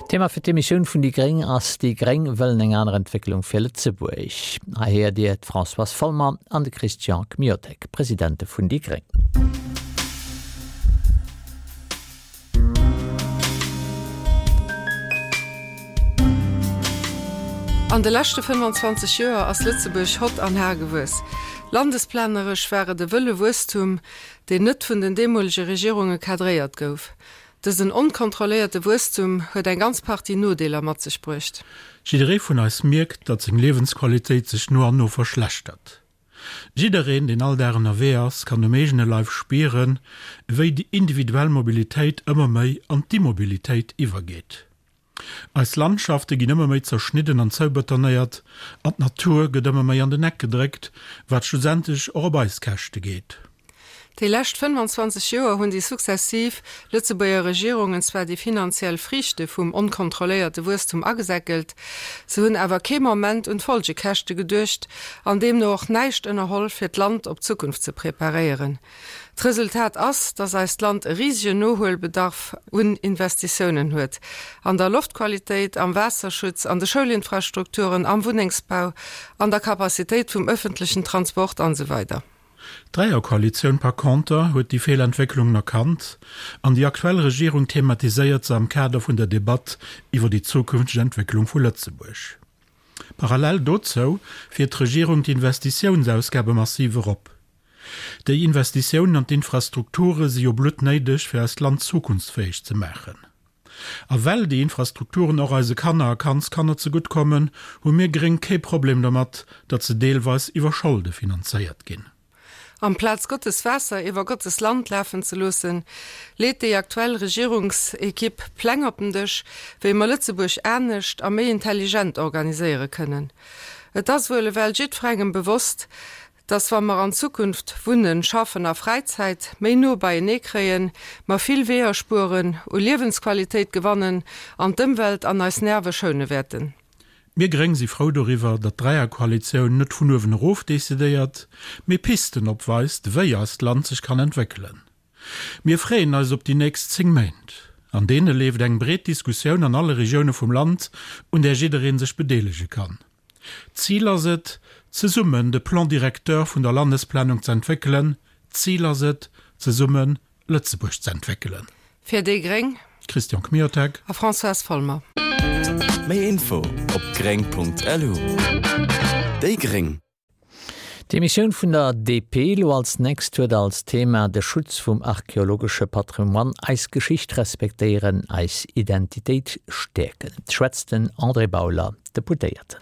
Thema fir d'Emissioun vun déi gréng ass Déi gréng wëllen eng aner Entwécklung fir Lëtzebuerg. Hei héiert Dir d'Françoise Folmer an de Christian Kmiotek, Presidente vun déi gréng. An de leschte 25 Joer ass Lëtzebuerg hott an har gewuess. Landesplaneresch war et e wëlle Wuesstum, deen net vun den deemolege Regierunge cadréiert gouf. Dësen onkontrolléierte Wuesstum huet eng ganz Partie Nodeeler mat sech bruecht. Jidderee vun eis mierkt, datt seng Liewensqualitéit sech no an no verschlechtert. Jiddereen, deen all Dag ënnerwee ass, kann um eegene Leif spieren, wéi déi individuell Mobilitéit ëmmer méi an d'Immobilitéit iwwergeet. Eis Landschafte ginn ëmmer méi zerschnidden an zoubetonéiert an d'Natur gëtt ëmmer méi an den Eck gedréckt, wat schlussendlech och op eis Käschte geet. Déi lescht 25 Joer hunn déi successiv Lëtzebuerger Regierungen zwar déi finanziell Friichte vum onkontrolléierte Wuesstum agesäckelt, se hunn awer kee Moment un d'Folgekäschte geduecht an deemno och näischt ënnerholl fir d'Land op d'Zukunft ze preparéieren. D'Resultat ass, dass eist Land e risegen Nohuelbedarf un Investitiounen huet, an der Loftqualitéit, am Waasserschutz, an de Schoulinfrastrukturen, am Wunnengsbau, an der Capacitéit vum ëffentlechen Transport an esou weider. D'Dräierkoalitioun par conter huet déi Feelentwécklungen erkannt an déi aktuell Regierung thematiséiert se am Kader vun der Debatt iwwer déi zukünfteg Entwécklung vu Lëtzebuerg. Parallel dozou fiert d'Regierung d'Investitiounsausgabe massiv erop. Déi Investitiounen an d'Infrastrukture si jo bluttnéideg fir eist Land zukunftsfäeg ze maachen. A well déi Infrastrukturen och eise Kanner a Kandskanner zegutt kommen, hu mir Gréng kee Problem domat, datt se deelweis iwwer Scholde finanzéiert ginn. Amplaz Gottes Waasser iwwer Gottes Land lafen ze loossen, leet déi aktuell Regierungsekipp Pläng op den Dësch, wéi mer Lëtzebuerg anescht a méi intelligent organiséiere kënnen. Et ass wuel ewell jiddferengem bewosst, dass wa mer an Zukunft Wunnen, Schaffen a Fräizäit méi no beienee kréien, mer vill Weeër spueren, u Liewensqualitéit gewannen an d'Ëmwelt an eis Nerve schoune wäerten. Mir Gréng si frou doriwwer, datt d'Dräierkoalitioun net vun uewen erof decidéiert, mee Pisten opweist, wéi eist Land sech kann entwéckelen. Mir freeën eis op déi nächst 10 Méint. An deene leeft eng breet Diskussioun an alle Regioune vum Land, un där jidderee sech bedeelege kann. D'Zil ass et, zesummen de Plan directeur vun der Landesplanung z'entwéckelen. D'Zil ass et, zesumme Lëtzebuerg z'entwéckelen. Fir déi gréng. Christian Kmiotek. A Françoise Folmer. Méi Info op gréng.lu. Déi gréng. D'Emissioun vun der DP elo als nächst huet als Thema de Schutz vum archeologesche Patrimoine, eis Geschicht respektéieren, eis Identitéit stäerken. Schwätzt den André Bauler, Deputéierten.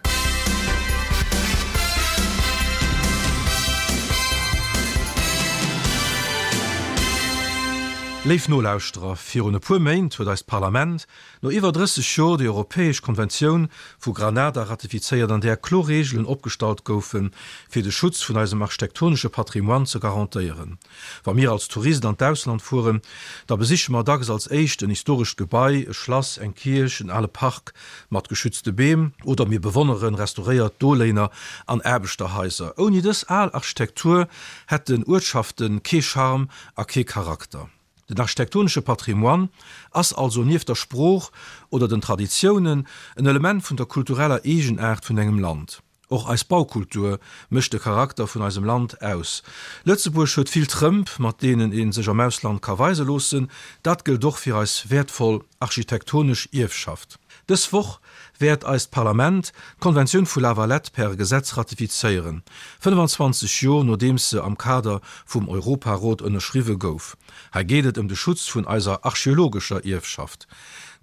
Léif Nolauschterer, virun e puer Méint huet eist Parlament no iwwer 30 Jor déi europäesch Konventioun vu Granada ratifizéiert, an där kloer Reegelen opgestallt goufen, fir de Schutz vun eisem architektonesche Patrimoine ze garantéieren. Wa mir als Tourist an d'Ausland fueren, da besiche mer dacks als éischt en historescht Gebai, e Schlass, eng Kierch, en ale Park mat geschützte Beem oder mir bewonnere restauréiert Doléiner an Aarbechterhaiser. Ouni dës al Architektur hätten Uertschafte kee Charme a kee Charakter. Den architektonesche Patrimoine ass also nieft der Sprooch oder den Traditiounen en Element vun der kultureller Eegenaart vun engem Land. Och eis Baukultur mécht de Charakter vun eisem Land aus. Lëtzebuerg huet vill Trëmp, mat deenen ee sech am Ausland ka weise loossen. Dat gëllt och fir eis wäertvoll architektonesch Ierfschaft. Dës Woch wäert eist Parlament d'Konventioun vu La Valette per Gesetz ratifizéieren, 25 Jor nodeems se am Kader vum Europarot ënnerschriwwe gouf. Hei geet et ëm de Schutz vun eiser archeologescher Ierfschaft.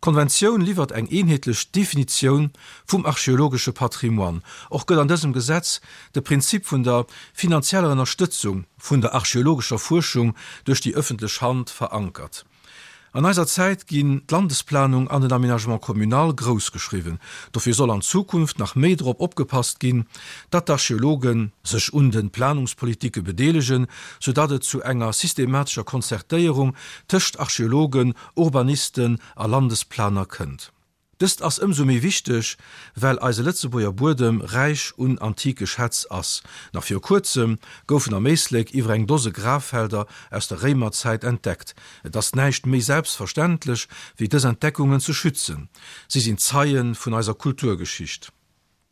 D'Konventioun liwwert eng eenheetlech Definitioun vum archeologesche Patrimoine. Och gëtt an dësem Gesetz de Prinzip vun der finanzieller Ënnerstëtzung vun der archeologescher Fuerschung duerch déi ëffentlech Hand verankert. An eiser Zäit ginn d'Landesplanung an den Aménagement communal grouss geschriwwen. Dofir soll an Zukunft nach méi drop opgepasst ginn, datt d'Archeologe sech un de Planungspolitike bedeelegen, soudatt et zu enger systematescher Konzertéierung tëscht Archeologen, Urbanisten a Landesplaner kënnt. Dëst ass ëmsou méi wichteg, well eise Lëtzebuerger Buedem räich un antike Schätz ass. Nach viru kuerzem goufen am Éislek iwwer eng Dose Graffelder aus der Réimerzäit entdeckt. Et ass näischt méi selbstverständlech, wéi dës Entdeckungen ze schützen. Si sinn Zeie vun eiser Kulturgeschicht.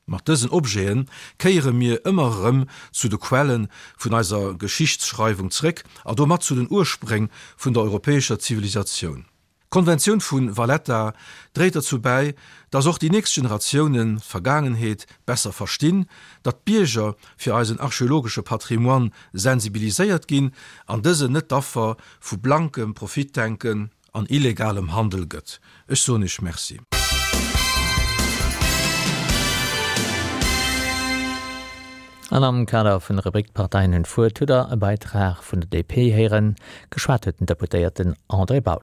Mat dësen Objete kéiere mir ëmmer erëm zu de Quelle vun eiser Geschichtsschreiwung zréck a domat zu den Urspréng vun der europäescher Zivilisatioun. D'Konventioun vu Valletta dréit derzou bäi, datt och déi nächst Generatiounen d'Vergaangenheet besser verstinn, datt d'Bierger fir eisen archeologesche Patrimoine sensibiliséiert ginn an dësen net d'Affer vu blankem Profitdenken an illegalem Handel gëtt. Ech soen Iech Merci. An am Kader vun der Rubrik D'Parteien hunn d'Wuert hutt Der e Beitrag vun der DP héieren. Geschwat huet den Deputéierten André Bauler.